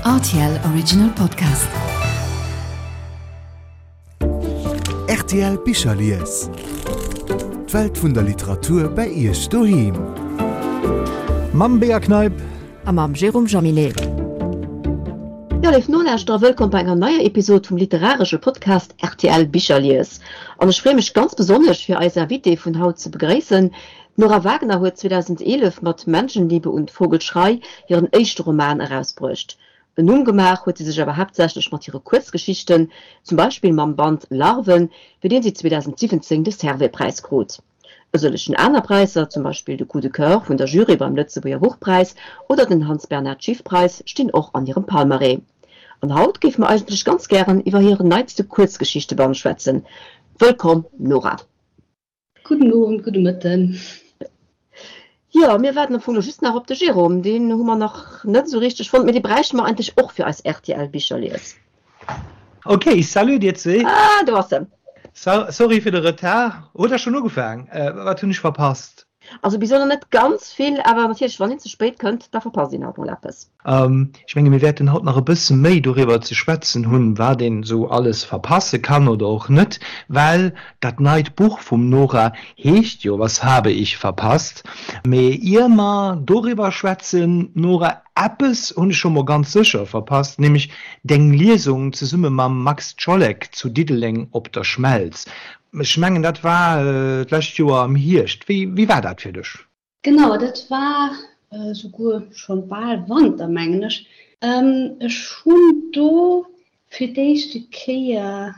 Rtl Original Podcast. Rtl Bicherlies. D'Welt vun der Literatur bei Iech doheem. Mam Bea Kneip. A mam Jérôme Jaminet. Jo, léif Nolauschterer, wëllkomm bei enger neier Episod vum literaresche Podcast rtl Bicherlies. An ech freeë mech ganz besonnesch, fir eis Invitée vun haut ze begréissen, D'Nora Wagner huet 2011 mat Menschenliebe und Vogelschrei hiren éischte Roman erausbruecht. En Numm gemaach huet si sech awer haaptsächlech mat hire Kuerzgeschichten, zum Beispill mam Band Larven, fir deen si 2017 de Servais-Präis krut. E sëllegen aner Präisser, zum Beispill de Coup de Coeur vun der Jury beim Lëtzebuerger Buchpräis oder den Hans Bernhard Schiff-Preis, stinn och an hirem Palmarès. An haut géife mer eigentlech ganz gären iwwer hiren neitste Kuerzgeschichteband schwätzen. Wëllkomm, Nora! Gudden Owend, gudde Mëtten. Jo, mir waarden am Fong lo just nach op de Jérôme. Deen hu mer nach net esou richteg fonnt, mee dee bräichte mer eigentlech och fir eis RTL-Bicherlies. Ok, salut dir zwee. Ah, do ass en. Sorry fir de Retard. Huet der schonn ugefaang? Wat hunn ech verpasst? Also bis elo nach net ganz vill, awer natierlech, wann een ze spéit kënnt, da verpasst een halt mol eppes. Ech menge mir wäerten haut nach e bësse méi doriwwer ze schwätzen hunn, wat een esou alles verpasse kann oder och net, well dat neit Buch vum Nora heescht jo Was habe ich verpasst? Mee ier mer doriwwer schwätzen, Nora, eppes hunn ech scho mol ganz sécher verpasst, nämlech deng Liesung zesumme mam Max Czollek zu Diddeleng op der Schmelz. Ech mengen dat war d'lescht Joer am Hierscht. Wéi war dat fir dech? Genau, dat war souguer schonn bal Wanter, mengen ech. Ech hunn do fir d'éischte Kéier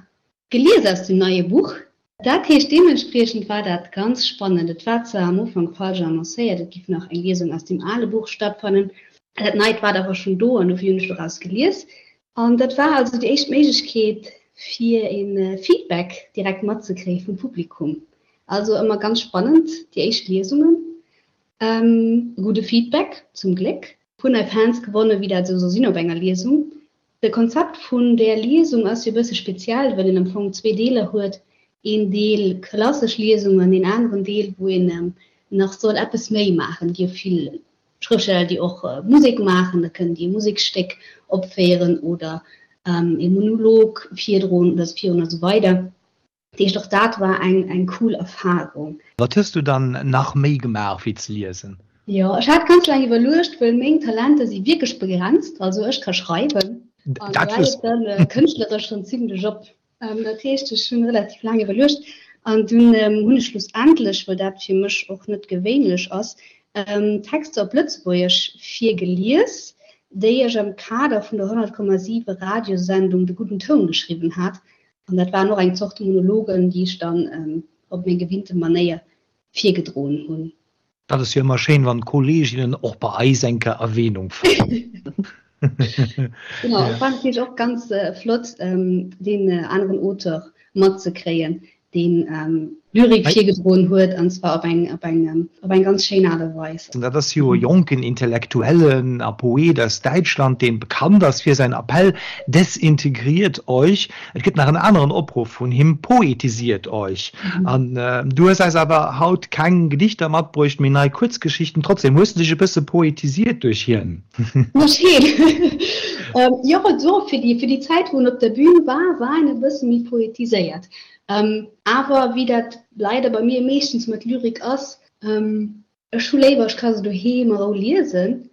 gelies aus dem neie Buch. Dat heescht, deementspriechend war dat ganz spannend. Et war zwar am Ufank falsch annoncéiert, et giff nach eng Liesung aus dem ale Buch stattfannen. Dat neit war awer schonn do an dofir hunn ech doraus gelies. An dat war also déi éischt Méiglechkeet, fir e Feedback direkt matzekréie vum Publikum. Also ëmmer ganz spannend, déi éischt Liesungen. E gudde Feedback, zum Gléck. Puer nei Fans gewonnen, wéi dat esou soll sinn op enger Liesung. De Konzept vun där Liesung ass jo e bësse speziell, well een am Fong zwee Deeler huet, een Deel klassesch Liesung an een aneren Deel, wou een nach soll eppes méi maachen. Et gi jo vill Schrëftsteller, déi och Musek maachen, da kënnen déi e Museksstéck opféieren oder e Monolog virdroen oder virun a sou weider. Dat heescht, och dat war eng eng cool Erfarung. Wat hues du dann nach méi gemaach wéi ze liesen? Jo, ech hat ganz laang iwwerluecht, wëll meng Talenter si wierklech begrenzt. Also ech ka schreiwen an do hält et dann kënschtleresch schonn zimmlech op. Dat heescht, ech hunn relativ laang iwwerluecht an dunn hunn ech schlussendlech, well dat fir mech och net gewéinlech ass, Texter op Lëtzebuergesch virgelies, déi ech am Kader vun der 100,7 Radiosendung De gudden Toun geschriwwen hat. An dat waren och eng Zort Monologen, déi ech dann op meng gewinnte Manéier virgedroen hunn. Dat ass jo ëmmer schéin, wann d'Kolleeginnen och bei eis eng Kéier Erwähnung fannen. Genau, et war natierlech och ganz flott, deen aneren Auteur matzekréien, deen Lyrik virgedroen huet, an zwar op eng, op eng, op eng ganz schéin Aart a Weis. Dat ass jo e jonken Intellektuellen a Poet aus Däitschland, deen bekannt ass fir säin Appell Desintegriert euch! Et gëtt nach en aneren Opruff vun him, Poetisiert euch! An du hues eis awer haut keng Gedichter matbruecht, mee nei Kuerzgeschichten. Trotzdem, hues du dech e bësse poetisiert duerch hien? Duerch hien? Jo, do fir déi, fir déi Zäit, wou en op der Bühn war, war en e bësse méi poetiséiert. Awer wéi dat leider bei mir meeschtens mat Lyrik ass, Ech hu léiwer, ech ka se doheem a Rou liesen.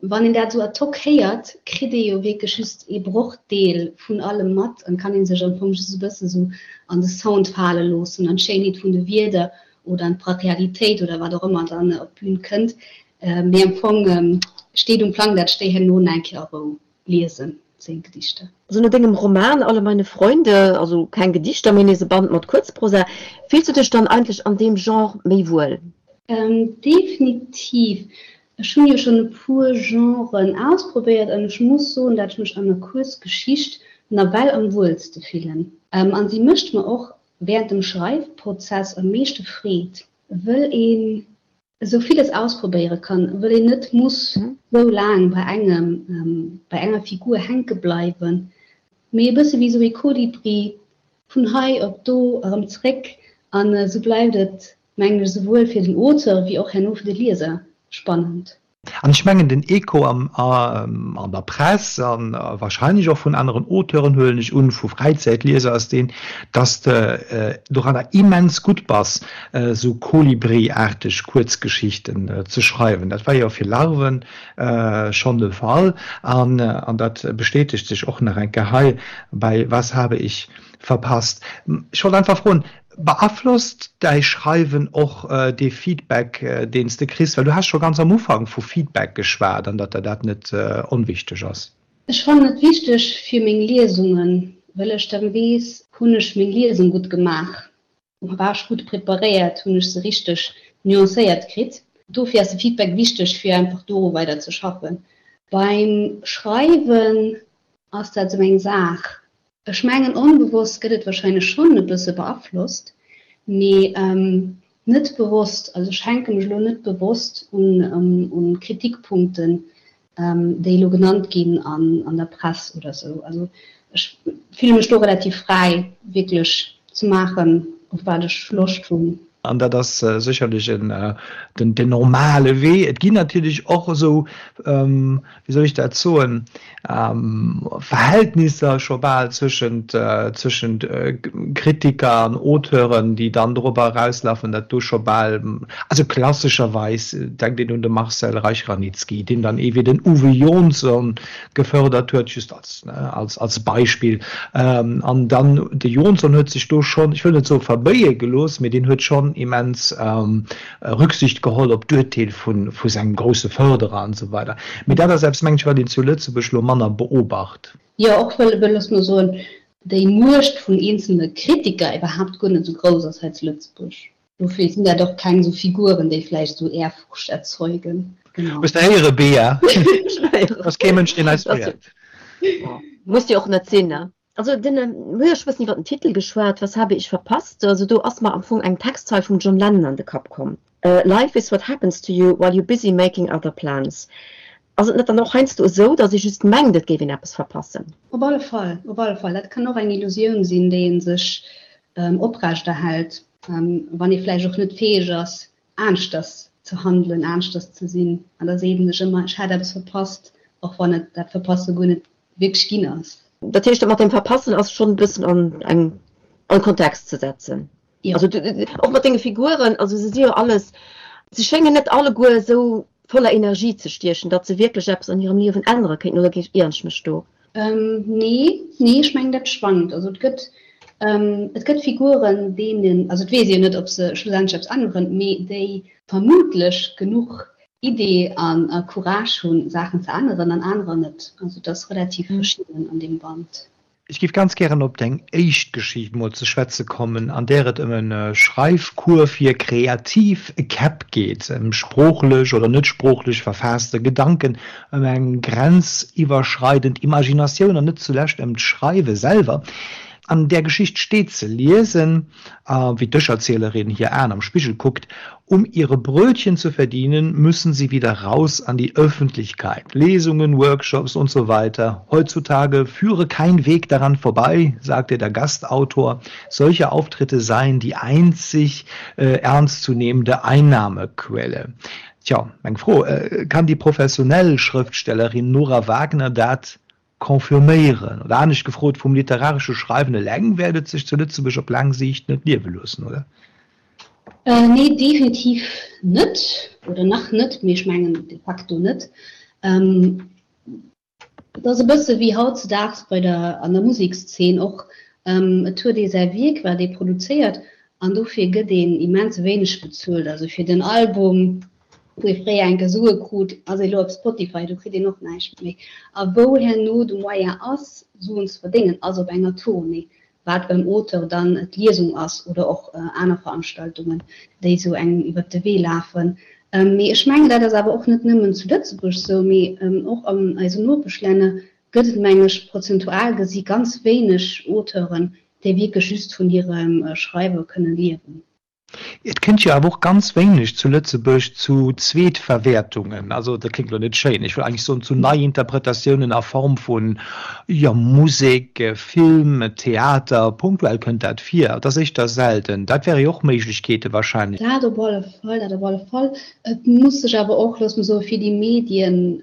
Wann een dat esou ad hoc héiert, kritt ee jo wierklech just ee Brochdeel vun allem mat an kann ee sech am Fong just e bësse sou an de Sound fale loossen, an d'Schéinheet vun de Wierder oder an d'Brachialitéit oder wat och ëmmer dann op d'Bün kënnt. Mee am Fong steet um Plang, dat ech déi herno nach eng Kéier a Rou liesen, seng Gedichter. Also no dengem Roman Alle meine Freunde, also keng Gedichter, mee nees e Band mat Kuerzprosa, fills du dech dann eigentlech an deem Genre méi wuel? Definitiv. Ech hunn jo schonn e puer Genren ausprobéiert an ech muss soen, dat ech mech an der Kuerzgeschicht nawell am wuelste fillen. An si mécht mer och während dem Schreifprozess am meeschte Freed, wëll een esou villes ausprobéiere kann, wëll een net muss esou laang bei engem, bei enger Figur hänke bleiwen, mee e bësse wéi esou ee Kolibri vun hei op do erëm zréck. An esou bleift et, mengen ech, esouwuel fir den Auteur wéi och herno fir de Lieser spannend. An ech mengen, den Echo am, an der Press a wahrscheinlech och vun aneren Auteuren, huelen ech un, vu Fräizäitlieser, ass deen, dass de doranner immens gutt bass, esou Kolibri-aarteg Kuerzgeschichten ze schreiwen. Dat war jo fir Larven schonn de Fall an dat bestätegt sech och nach eng Kéier hei bei Was habe ich verpasst. Ech wollt einfach froen, Beaflosst däi Schreiwen och dee Feedback, deen s de kriss? Well du has scho ganz am Ufank vu Feedback geschwat an datt der dat net onwichteg ass. Ech fannen et wichteg fir meng Liesungen, well ech dann weess, hunn ech meng Liesung gutt gemaach, war ech gutt preparéiert, hunn ech se richteg nuancéiert kritt. Dofir ass de Feedback wichteg, fir einfach doru weider ze schaffen. Beim Schreiwen ass dat esou eng Saach, Ech mengen onbewosst gëtt et wahrscheinlech schonn e bësse beaflosst, mee net bewosst. Also ech hänke mech elo net bewosst un Kritikpunkten, déi elo genannt ginn an der Press oder sou. Also ech fille mech do relativ fräi wierklech ze maachen, op wat ech Loscht hunn. An dat ass sécherlech den normale Wee. Et ginn natierlech och esou, wéi soll ech dat soen, Verhältnisser scho bal zwëschent, zwëschent Kritiker an Auteuren, déi dann dorobber erauslafen, datt do scho bal, also klassescherweis denkt een un de Marcel Reich-Ranicki, deen dann ee wéi den Uwe Johnson gefördert huet, just als, als, als Beispill. An dann de Johnson huet sech do schonn, ech wëll net soe verbéie gelooss, mee deen huet schonn immens Rücksicht geholl op d'Urteel vu, vu sengem grousse Förderer an esou weider. Mee dat ass eppes, mengen ech, wat een zu Lëtzebuerg elo manner beobacht. Jo, och wëll, wëll, looss mer soen, déi Muecht vun eenzelne Kritiker iwwerhaapt guer net esou grouss ass hei zu Lëtzebuerg. Dofir sinn dat och keng esou Figuren, déi vläicht esou Ehrfurcht erzeugen. Genau. Hues de héiere, Bea? Ass kee Mënsch, deen eis féiert. Muss jo och net sinn, ne? Also den, mir hu jo scho bëssen iwwer den Titel geschwat, Was habe ich verpasst? Also do ass mer am Fong eng Textzeil vum John Lennon an de Kapp komm, Life is what happens to you while you're busy making other plans. Ass et net dann och heiansdo esou, datt ee just mengt, et géif een eppes verpassen? Op alle Fall, op alle Fall. Dat kann och eng Illusioun sinn, déi ee sech oprechterhält, wann ee vläicht och net fäeg ass, aneschters ze handelen, aneschters ze sinn. An da seet ee sech ëmmer, ech hätt eppes verpasst, och wann et dat Verpasse guer net wierklech ginn ass. Dat heescht, dat mat dem Verpassen ass schonn e bëssen an eng, an Kontext ze setzen. Jo. Also och mat denge Figuren, also se si jo alles, se schéngen net alleguer esou voller Energie ze stiechen, datt se wierklech eppes an hirem Liewen ännere kéinten, oder ieren ech mech do? Nee, nee, ech mengen dat schwankt. Also et gëtt, et gëtt Figuren, deenen, also et weess een jo net, ob se schlussendlech eppes änneren, mee déi vermutlech genuch Idee an Courage hunn, Saachen ze änneren, an anerer net. Also et ass relativ verschidden an deem Band. Ech géif ganz gären op deng éischt Geschicht mol ze schwätze kommen, an där et ëm e Schreifcours fir kreativ Käpp geet, ëm sproochlech oder net sproochlech verfaasste Gedanken, ëm eng grenziwwerschreidend Imaginatioun an net zulescht ëm d'Schreiwe selwer. An där Geschicht steet ze liesen, wéi d'Ech-Erzielerin hir Aen am Spigel kuckt, Um ihre Brötchen zu verdienen, müssen sie wieder raus an die Öffentlichkeit. Lesungen, Workshops und so weiter. Heutzutage führe kein Weg daran vorbei, sagte der Gastautor. Solche Auftritte seien die einzig äh, ernstzunehmende Einnahmequelle. Tja, meng Fro, äh, kann déi professionell Schrëftstellerin Nora Wagner dat Confirméieren? Oder anescht gefrot, vum literaresche Schreiwen eleng wäert et sech zu Lëtzebuerg op laang Siicht net liewe loossen, oder? Nee, definitiv net. Oder nach net, mee ech mengen de facto net. Et ass e bësse wéi hautzedaags bei der, an der Musekszeen och, Et huet ee säi Wierk, wat ee produzéiert, an dofir gëtt een immens wéineg bezuelt. Also fir den Album wou ee fréier enke Sue krut, ass ee lo op Spotify, do kritt een och näischt méi. A wou herno de Moyen ass, Suen ze verdéngen, ass op enger Tournée, wat beim Auteur dann d'Liesung ass oder och aner Veranstaltungen, déi esou engem iwwert de Wee lafen. Mee ech mengen, dat ass awer och net nëmmen zu Lëtzebuerg esou, mee och an eisen Nopeschlänner gëtt et, mengen ech, prozentual gesi ganz wéineg Auteuren, déi wierklech just vun hirem Schreiwe kënne liewen. Et kënnt jo awer och ganz wéineg zu Lëtzebuerg zu Zweetverwäertungen, also dat kléngt elo net schéin, ech wëll eigentlech soen zu Neiinterpretatiounen a Form vun, jo, Musek, Film, Theater, punktuell kënnt dat vir, et ass éischter selten. Dat wäre jo och Méiglechkeete wahrscheinlech. Dat op alle Fall, dat op alle Fall. Et muss sech awer och, loosse mer soen, fir déi Medien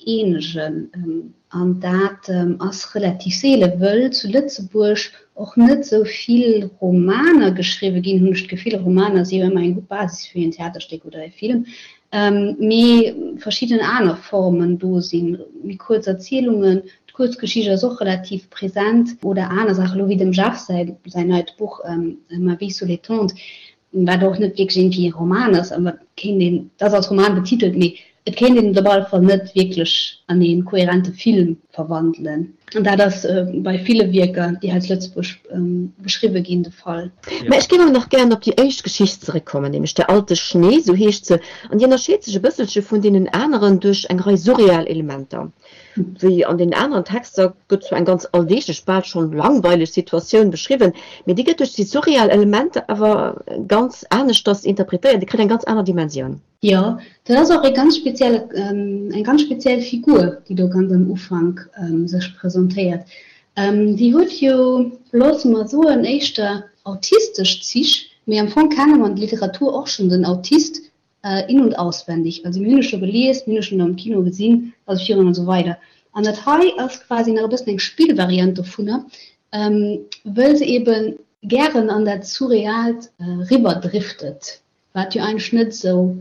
eenegen. An dat ass relativ seele, wëll zu Lëtzebuerg och net esou vill Romaner geschriwwe ginn, hunn ech d'Gefill. Romaner si jo ëmmer eng gutt Basis fir en Theaterstéck oder e Film, mee verschidden aner Formen do sinn, méi kuerz Erzielungen, d'Kuerzgeschicht ass och relativ present, oder aner Saachen, elo wéi dem Jeff säi neit Buch Ma vie sous les tentes, wat och net wierklech iergendwéi e Roman ass, awer et kéint een, et ass als Roman betitelt, mee et kéint een et op alle Fall net wierklech an ee koherente Film verwandelen. An dat ass bei ville Wierker, déi hei zu Lëtzebuerg geschriwwe ginn, de Fall. Mä ech géif awer nach gären op déi éischt Geschicht zeréckkommen, nämlech Der alte Schnee, sou heescht se, an déi ënnerscheet sech e bësselche vun deenen aneren duerch eng Rei surreal Elementer. Wéi an den aneren Texter gëtt zwar eng ganz alldeeglech, bal schonn langweileg Situatioun beschriwwen, mee déi gëtt duerch déi surreal Elementer awer ganz aneschters interpretéiert, déi kritt eng ganz aner Dimensioun. Jo, dat ass och e ganz spezielle, eng ganz speziell Figur, déi do ganz am Ufank sech presentéiert. Déi huet jo, loosse mer soen, éischter autistesch Zich, mee am Fong kenne mer an der Literatur och schonn den Autist in und auswendig. Also mir hunn e scho gelies, mir hunn e schonn am Kino gesinn, also virun an esou weider. An dat hei ass quasi nach e bëssen eng Spillvariant dovunner, wëll se eebe gären an dat Surreaalt riwwerdriftet, wat jo eigentlech net esou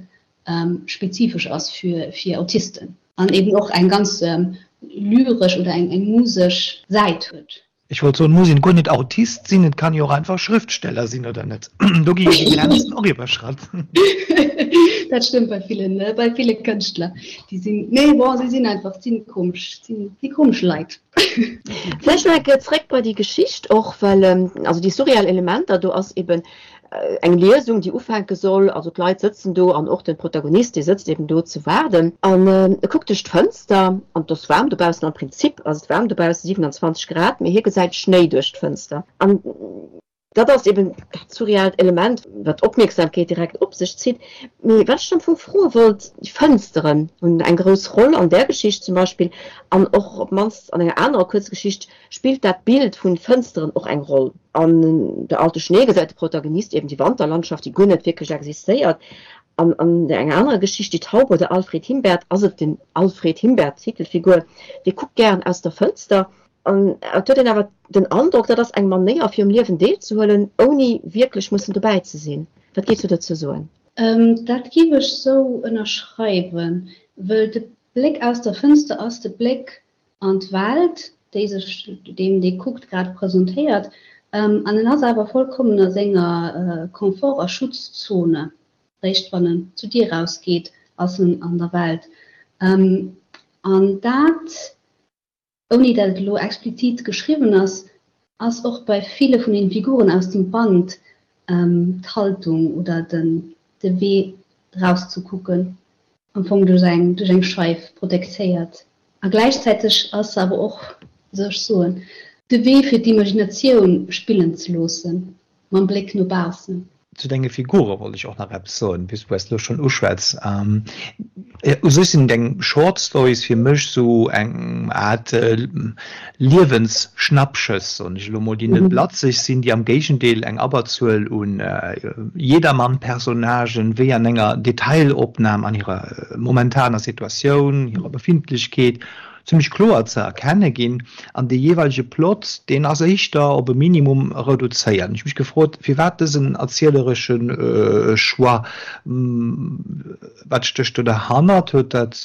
spezifesch ass fir Autisten an eeben och eng ganz lyresch oder eng musesch Säit huet. Ech wollt soen, muss een guer net Autist sinn, et kann jo och einfach Schrëftsteller sinn, oder net? Do gi jo déi Grenzen och iwwerschratt. Dat stëmmt bei villen, bei ville Kënschtler. Déi sinn, nee, bon, si sinn einfach, sinn komesch, sinn déi komesch Leit. Vläicht nach eng Kéier zréck bei déi Geschicht och, well also déi surreal Elementer, do ass eben Eng Liesung, déi ufänke soll, also d'Leit sëtzen do an och de Protagonist, dee sëtzt eben do ze waarden an e kuckt duerch d'Fënster an et ass waarm dobaussen, am Prinzip ass et waarm dobaussen, 27 Grad, mee hie gesäit Schnéi duerch d'Fënster an dat ass eben dat surrealt Element, wat d'Opmierksamkeet direkt op sech zitt. Mee wat ech am Fong froe wollt, déi Fënsteren hunn eng grouss Roll an där Geschicht zum Beispill an och op d'mannst an enger anerer Kuerzgeschicht spillt dat Bild vun Fënsteren och eng Roll. An Der alte Schnee gesäit de Protagonist eben déi Wanterlandschaft, déi guer net wierklech existéiert. An an enger anerer Geschicht, Die Taube oder Alfred Himbert, ass et den Alfred Himbert, d'Titelfigur, dee kuckt gären aus der Fënster. An et huet een awer den Androck, dat ass eng Manéier fir um Liewen deelzehuelen, ouni wierklech mussen dobäi ze sinn. Wat géifs du dozou soen? Dat géif ech sou ënnerschreiwen, wëll de Bléck aus der Fënster ass de Bléck an d'Welt, déi sech deem, dee kuckt, grad presentéiert. An en ass awer vollkommen a senger Confort a Schutzzone. Réischt wann en zur Dier rausgeet, ass en an der Welt. An dat, ouni dat et elo explizit geschriwwen ass, ass och bei ville vun den Figuren aus dem Band d'Haltung oder den de Wee rauszekucken am Fong duerch eng duerch eng Scheif protektéiert. A gläichzäiteg ass se awer och, wéi soll ech soen, de Wee fir d'Imaginatioun spillen ze loossen, mam Bléck no baussen. Zu denge Figure wollt ech och nach eppes soen, puisque du es elo schonn uschwätz. U sech sinn deng Short Stories fir mech sou eng Aart Liewensschnappschëss, soen ech elo mol, déi net blatzeg sinn, déi am Géigendeel eng Abberzuel un Jedermann-Personnagen wéi an enger Detailopnam an hirer momentaner Situatioun, hirer Befindlechkeet zimmlech kloer ze erkenne ginn. An dee jeeweilege Plot, deen ass éischter op e Minimum reduzéiert. Ech hu mech gefrot, firwat dësen erzieleresche Choix? Wat stécht do derhannert? Huet dat,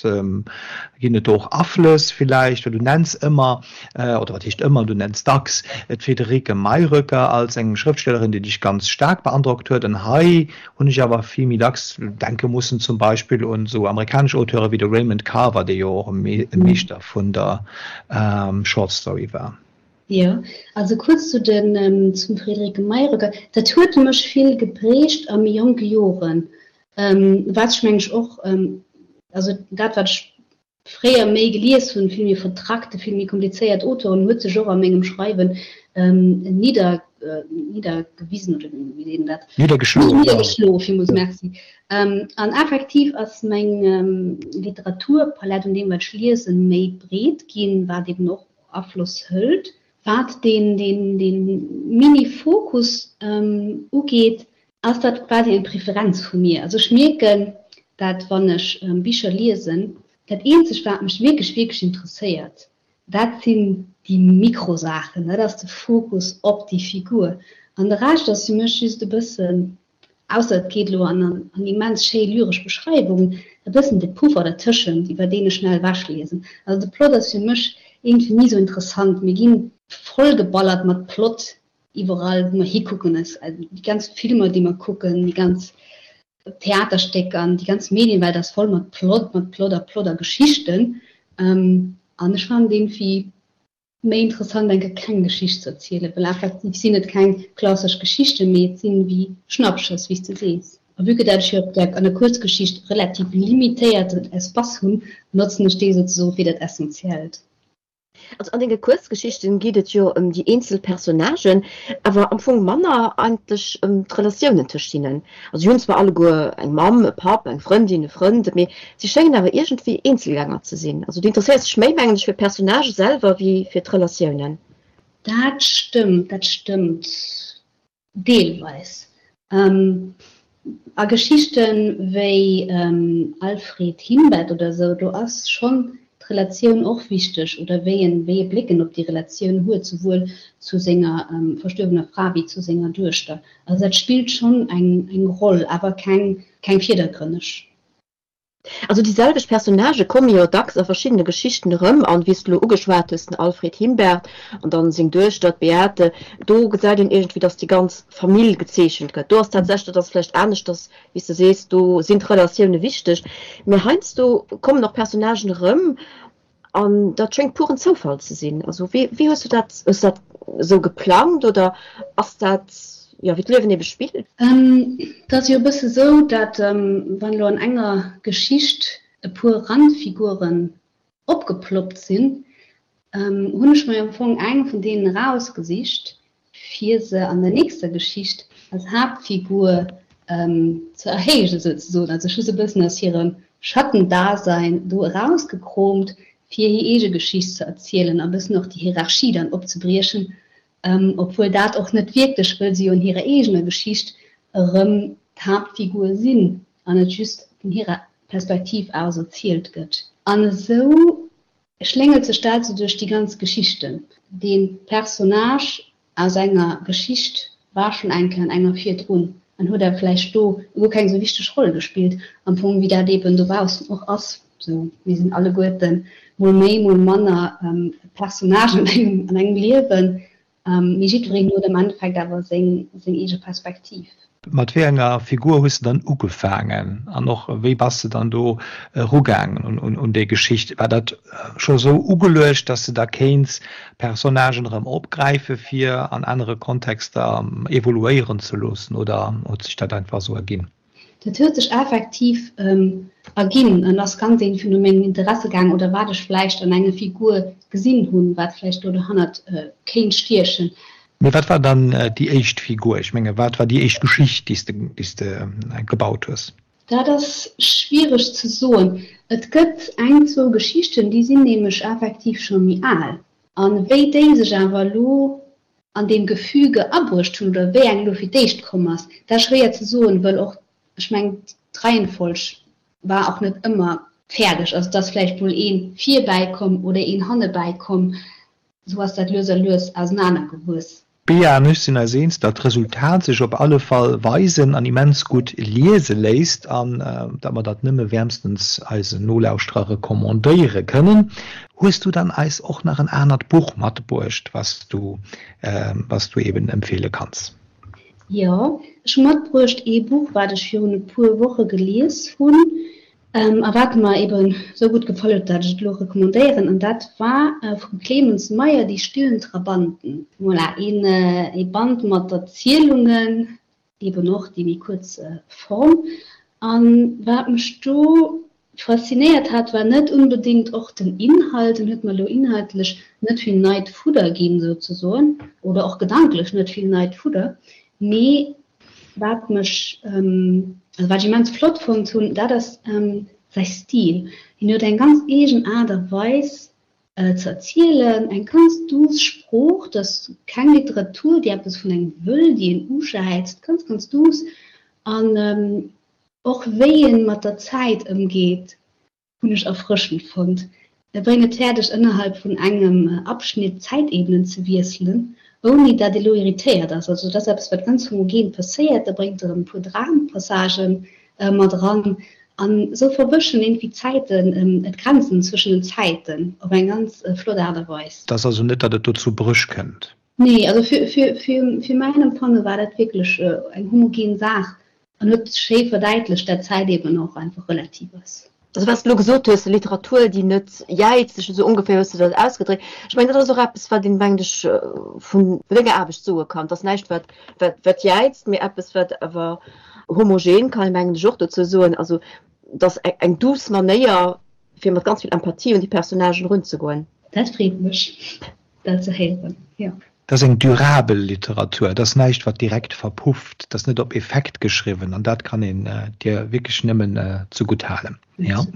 ginn et do och Aflëss villäicht? Well du nenns ëmmer, oder wat heescht ëmmer, du nenns dacks d'Friederike Mayröcker als eng Schrëftstellerin, déi dech ganz staark beandrockt huet. An hei hunn ech awer vill méi dacks denke mussen zum Beispill un esou amerikanesch Auteure wéi de Raymond Carver, dee jo och e Meeschter vun der Short Story war. Jo, also kuerz zu den, zum Friederike Mayröcker, Dat huet mech vill geprägt a méi jonke Joren. Wat ech mengen ech och, also dat wat ech fréier méi gelies hunn, vill méi vertrackte, vill méi komplizéiert Auteuren, huet sech och a mengem Schreiwen niddergeschloen. Niddergewisen oder wéi seet een dat? Niddergeschloen, jo. Niddergeschloen, villmools merci. An effektiv ass meng Literaturpalett un deem wat ech liesen méi breet ginn, wat eben och Afloss hëlt. Wat deen Mini-Fokus ugeet, ass dat quasi eng Preferenz vu mir. Also ech mierken dat wann ech Bicher liesen, dat eenzegt wat mech wierklech wierklech interesséiert, dat sinn déi Mikrosaachen, dat ass de Fokus op déi Figur. An de Rescht ass fir mech just e bëssen, ausser et geet elo an an immens schéi lyresch Beschreiwungen, e bëssen de Puffer dertëschent, iwwer deen ech schnell ewechliesen. Also de Plot ass fir mech iergendwéi ni sou interessant. Mir gi vollgeballert mat Plot iwwerall wou mer hikucken, déi ganz Filmer déi mer kucken, déi ganz Theaterstécker an déi ganz Medienwelt ass voll mat Plot, mat Plot a Plot a Geschichten. An ech fannen iergendwéi méi interessant eng Kéier keng Geschicht ze erzielen, well effektiv sinn et keng klassesch Geschichten, mee et sinn wéi Schnappschëss, wéi s de sees. A vue que dat ech jo op der, an der Kuerzgeschicht relativ limitéierten Espace hunn, notzen ech dee souzesoe fir dat Essentiellt. Also an denge Kuerzgeschichten geet et jo ëm déi eenzel Personnagen, awer am Fong manner eigentlech ëm d'Relatiounen tëscht hinnen. Also si hunn zwar alleguer eng Mamm, e Papp, eng Frëndin, e Frënd, mee si schéngen awer iergendwéi Eenzelgänger ze sinn. Also du interesséiers dech méi, mengen ech, fir d'Personnagë selwer wéi fir d'Relatiounen. Dat stëmmt, dat stëmmt. Deelweis. A Geschichte wéi Alfred Himbert oder esou, do ass schonn d'Relatioun och wichteg, oder wéi en, wéi e Bléck en op déi Relatioun huet, souwuel zu senger verstuerwener Fra wéi zu senger Duechter. Also dat spillt schonn eng Roll, awer keng, keng virdergrënneg. Also déi selwecht Personnagë komme jo dacks a verschiddene Geschichten erëm, an wéi s de elo ugeschwat hues, den Alfred Himbert an dann seng Duechter, d'Beate, do gesäit een iergendwéi, datt déi ganz Famill gezeechent gëtt. Do ass tatsächlech, dat ass vläicht aneschters, wéi s de sees, do sinn d'Relatioune wichteg, mä heiansdo kommen och Personnagen erëm An dat schéngt puren Zoufall ze sinn. Also wéi, wéi hues du dat, hues du dat esou geplangt oder ass dat, jo, wéi d'Liewen ebe spillt? Et ass jo e bësse sou, dat wann elo an enger Geschicht e puer Randfiguren opgeploppt sinn, hunn ech mer jo am Fong eng vun deenen erausgesicht, fir se an der nächster Geschicht als Haaptfigur ze erhéijen, souzesoen. Also ech hu se e bëssen aus hirem Schattendasein do erausgekroomt, fir hir eege Geschicht ze erzielen a bëssen och déi Hierarchie dann opzebriechen, obwuel dat och net wierklech, wëll se jo an hirer eegener Geschicht erëm d'Haaptfigur sinn an et just vun hirer Perspektiv aus erzielt gëtt. An esou Schléngelt sech dat esou duerch déi ganz Geschichten. Dee Personnage aus enger Geschicht war schonn eng Kéier an enger virdrun an huet awer vläicht do guer keng esou wichteg Roll gespillt, am Fong wéi dat eeben dobaussen och ass. Sou, mir sinn alleguerten mol méi, mol manner Personnagen an engem Liewen. Mee jiddwereen huet am Endeffekt awer seng eege Perspektiv. Mat wéi enger Figur hues de dann ugefaangen an och wéi bass de dann do erugaangen un déi Geschicht? War dat scho sou ugeluecht, dass de da kéints Personnagen erëm opgräife fir an anere Kontexter evoluéieren ze loossen oder huet sech dat einfach esou erginn? Dat huet sech effektiv erginn an ass ganz iergendwéi no mengem Interesse gaang oder wat ech vläicht an enger Figur gesinn hunn, wat vläicht do dohannert kéint stiechen. Mee wat war dann déi éischt Figur? Ech menge wat war déi éischt Geschicht, déi s de gebaut hues? Dat ass schwiereg ze soen. Et gëtt eng, zwou Geschichten, déi sinn nämlech effektiv scho méi al. A wéi déi sech awer elo an deem Gefüge abruecht hunn oder wéi eng elo fir d'éischt komm ass, dat ass schwéier ze soen, wëll och, ech mengen, d'Reihenfolg war och net ëmmer fäerdeg. Also et ass vläicht mol ee virbäi komm oder een hannebäi komm, esou ass dat lues a lues ausenanergewuess. D'Bea an ech sinn eis eens, datt d'Resultat sech op alle Fall weisen an immens gutt liese léisst an datt mer dat nëmme wäermstens eisen Nolauschterer recommandéiere kënnen. Hues du dann eis och nach en anert Buch matbruecht, was du, was du eben empfehle kanns? Jo, ech hu matbruecht ee Buch, wat ech virun e puer Woche gelies hunn a wat mer eben esou gutt gefall huet, dat ech et elo recommandéieren, an dat war vum Clemens Meyer Die stillen Trabanten. Voilà, een ee Band mat Erzielungen, eben och déi méi kuerz Form. An wat mech do. Faszinéiert hat, war net unbedéngt och den Inhalt, en huet mer elo inhaltlech net vill neit Fudder ginn, souzesoen, oder och gedanklech net vill neit Fudder, mee wat mech, also wat ech immens flott fonnt hunn, dat ass säi Stil. Hien huet eng ganz eegen Aart a Weis ze erzielen, eng ganz duuss Sprooch, dat ass keng Literatur, déi eppes vun engem wëll, déi een ujäizt, ganz, ganz duuss an Och wéi en mat der Zäit ëmgeet, hunn ech erfrëschend fonnt. E bréngt et fäerdeg, ënnerhalb vun engem Abschnitt d'Zäitebenen ze wiesselen, ouni dat ee lo irritéiert ass. Also dat ass eppes, wat ganz homogen passéiert. Da bréngt e rëm e puer Drampassagen mat eran an esou verwëschen iergendwéi d'Zäiten, d'Grenzen zwëschen den Zäiten op eng ganz flott Aart a Weis. Et ass also net, datt et do zu Bréch kënnt? Nee, also fir mäin Empfanne war dat wierklech eng homogen Saach an huet schéi verdäitlecht, dat Zäit eben och einfach relativ ass. Also wat s de elo gesot hues, Literatur, déi net jäizt, esou ongeféier hues de dat ausgedréckt. Ech mengen, dat ass och eppes, wat een, mengen ech, vun denger Aarbecht soe kann. Et ass näischt, wat, wat, wat jäizt, mee eppes, wat awer homogen, kann ee mengen ech och dozou soen. Also et ass eng douce Manéier, fir mat ganz vill Empathie un déi Personnagen erunzegoen. Dat freet mech. Dat ze héieren, jo. Dat ass eng durabel Literatur, dat ass näischt, wat direkt verpufft, dat ass net op Effekt geschriwwen an dat kann een dir wierklech nëmmen zegutt halen. Jo.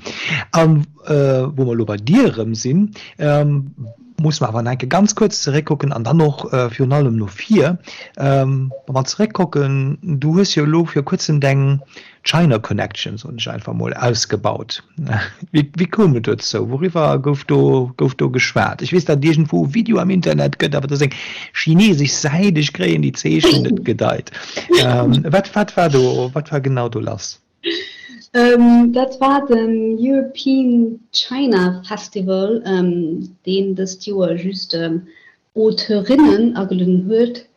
A wou mer elo bei dir erëm sinn, musse mer awer nach eng Kéier ganz kuerz zeréckkucken an dann och virun allem no vir. Wa mer zeréckkucken, du hues jo elo vir kuerzem deng China Connection, soen ech einfach mol, ausgebaut. Wéi koum et dozou? Wouriwwer gouf do, gouf do geschwat? Ech weess, datt et iergendwou e Video am Internet gëtt, awer dat ass eng chinesesch Säit, ech kréien déi Zeechen net gedeit. Wat, wat war do, wat war genau do lass? Dat war den European China Festival, deen dëst Joer just Auteurinnen agelueden huet,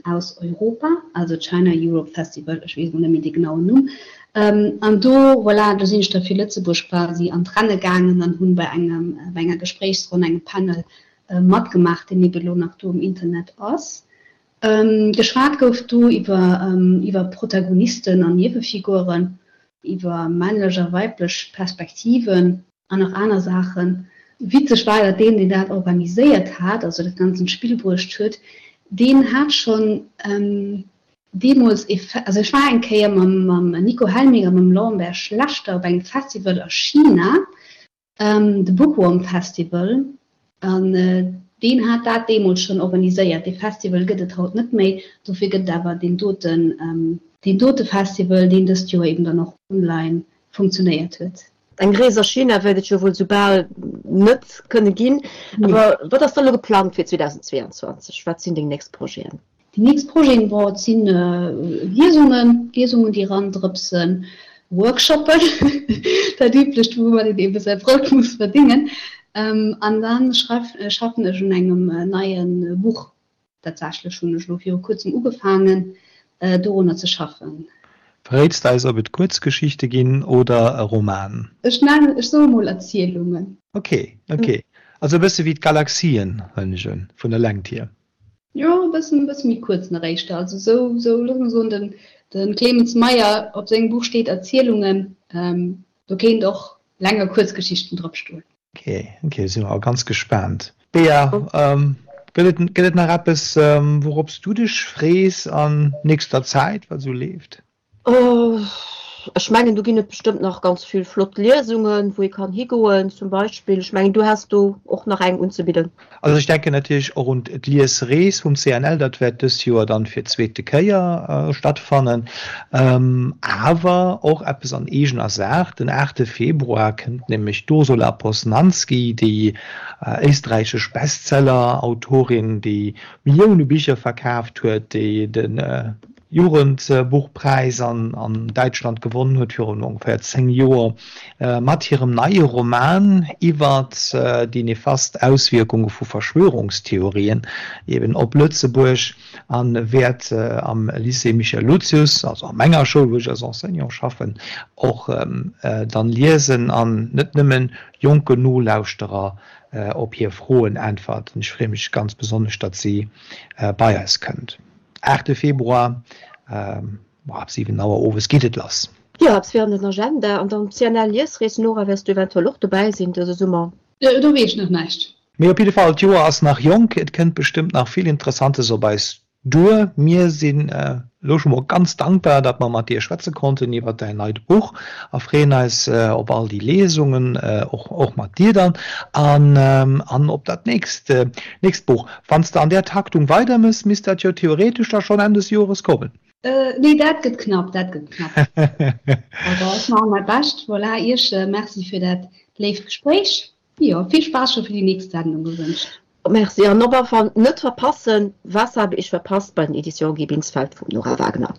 aus Europa, also China Europe Festival, ech weess elo net méi dee genauen Numm. An do, voilà, do sinn ech da fir Lëtzebuerg quasi an d'Renne gaangen an hunn bei engem, bei enger Gespréichsronn, engem Panel matgemaach, deen ebe lo nach do um Internet ass. Geschwat gouf do iwwer, iwwer Protagonisten an Niewefiguren, iwwer männlech a weiblech Perspektiven. An nach aner Saachen. Witzeg war, datt deen, deen dat organiséiert hat, also dat Ganzt an d'Spill bruecht huet, deen hat schonn deemools e, also ech war eng Kéier mam Nico Helmig a mam Lambert Schlechter op engem Festival a China, de Bookworm Festival, an deen hat dat deemools schonn organiséiert. Dee Festival gëtt et haut net méi, dofir gëtt et awer deen doten, deen dote Festival, deen dëst Joer eben dann och online funktionéiert huet. Eng Rees a China wäert et jo wuel soubal net kënne ginn. Awer wat ass da elo geplangt fir 2022? Wat sinn deng nächst Projeten? Déi nächst Projeten, bon, et si Liesungen, Liesungen, déi erandrëpsen, Workshoppen, dat Üblecht, woumat een ebe säi Brout muss verdéngen. An da schaffen ech un engem neie Buch. Tatsächlech hunn ech elo viru kuerzem ugefaangen, dorunner ze schaffen. Verréits de eis, ob et Kuerzgeschichte ginn oder e Roman? Ech nennen, ech soe mol Erzielungen. Ok, ok. Also e bësse wéi d'Galaxien, huelen ech un, vun der Längt hier. Jo, e bëssen, e bësse méi kuerz nach éischter. Also esou, esou, looss mer soen, den, de Clemens Meyer, op sengem Buch steet Erzielungen, do kéint och länger Kuerzgeschichten drop stoen. Ok, ok, si mer all ganz gespaant. Bea, gëtt et, gëtt et nach eppes, wourops du dech frees an nächster Zäit, wat esou leeft? Ech mengen, do ginn et bestëmmt nach ganz vill flott Liesungen, wou ee kann higoen zum Beispill. Ech mengen, du häss do och nach eng unzebidden. Also ech denken natierlech och un d'Liesrees vum CNL, dat wäert dës Joer dann fir d'zweete Kéier stattfannen. Awer och eppes an eegener Saach, Den aachte Februar kënnt nämlech d'Ursula Poznanski, déi éisträichesch Bestseller-Autorin, déi Millioune Bicher verkaaft huet, déi de Jugendbuchpräis an Däitschland gewonnen huet virun ongeféier 10 Joer mat hirem neie Roman iwwert déi nefast Auswierkunge vu Verschwörungstheorien eben op Lëtzebuerg a wäert am Lycée Michel Lucius, also a menger Schoul, wou ech als Enseignant schaffen, och dann liesen an net nëmmen jonken Nolauschterer op hir Froen äntwerten. Ech freeë mech ganz besonnesch, datt si bei eis kënnt. Aachte Februar, ab 7 Auer owes geet et lass. Jo, eppes fir an den Agenda. An dann d'CNL Liesrees, Nora, wäers du eventuell och dobäi sinn dëse Summer? Do weess ech nach näischt. Mee op jidde Fall, d'Joer ass nach jonk, et kënnt bestëmmt nach vill Interessantes op eis duer. Mir sinn elo scho mol ganz dankbar, datt mer mat dir schwätze konnten iwwer däin neit Buch a freeën eis op all déi Lesungen, och och mat dir dann, an an op dat nächst nächst Buch. Wann s de an där Taktung weidermëss, misst dat jo theoretesch da schonn Enn des Jores kommen. Nee, dat gëtt knapp, dat gëtt knapp. Awer ech maache mäi Bescht. Voilà, Iech Merci fir dat léift Gespréich. Jo, vill Spaass scho fir déi nächst Sendung gewënscht. Merci an op alle Fall net verpassen, Was habe ich verpasst bei den Editions Guy Binsfeld vum Nora Wagner.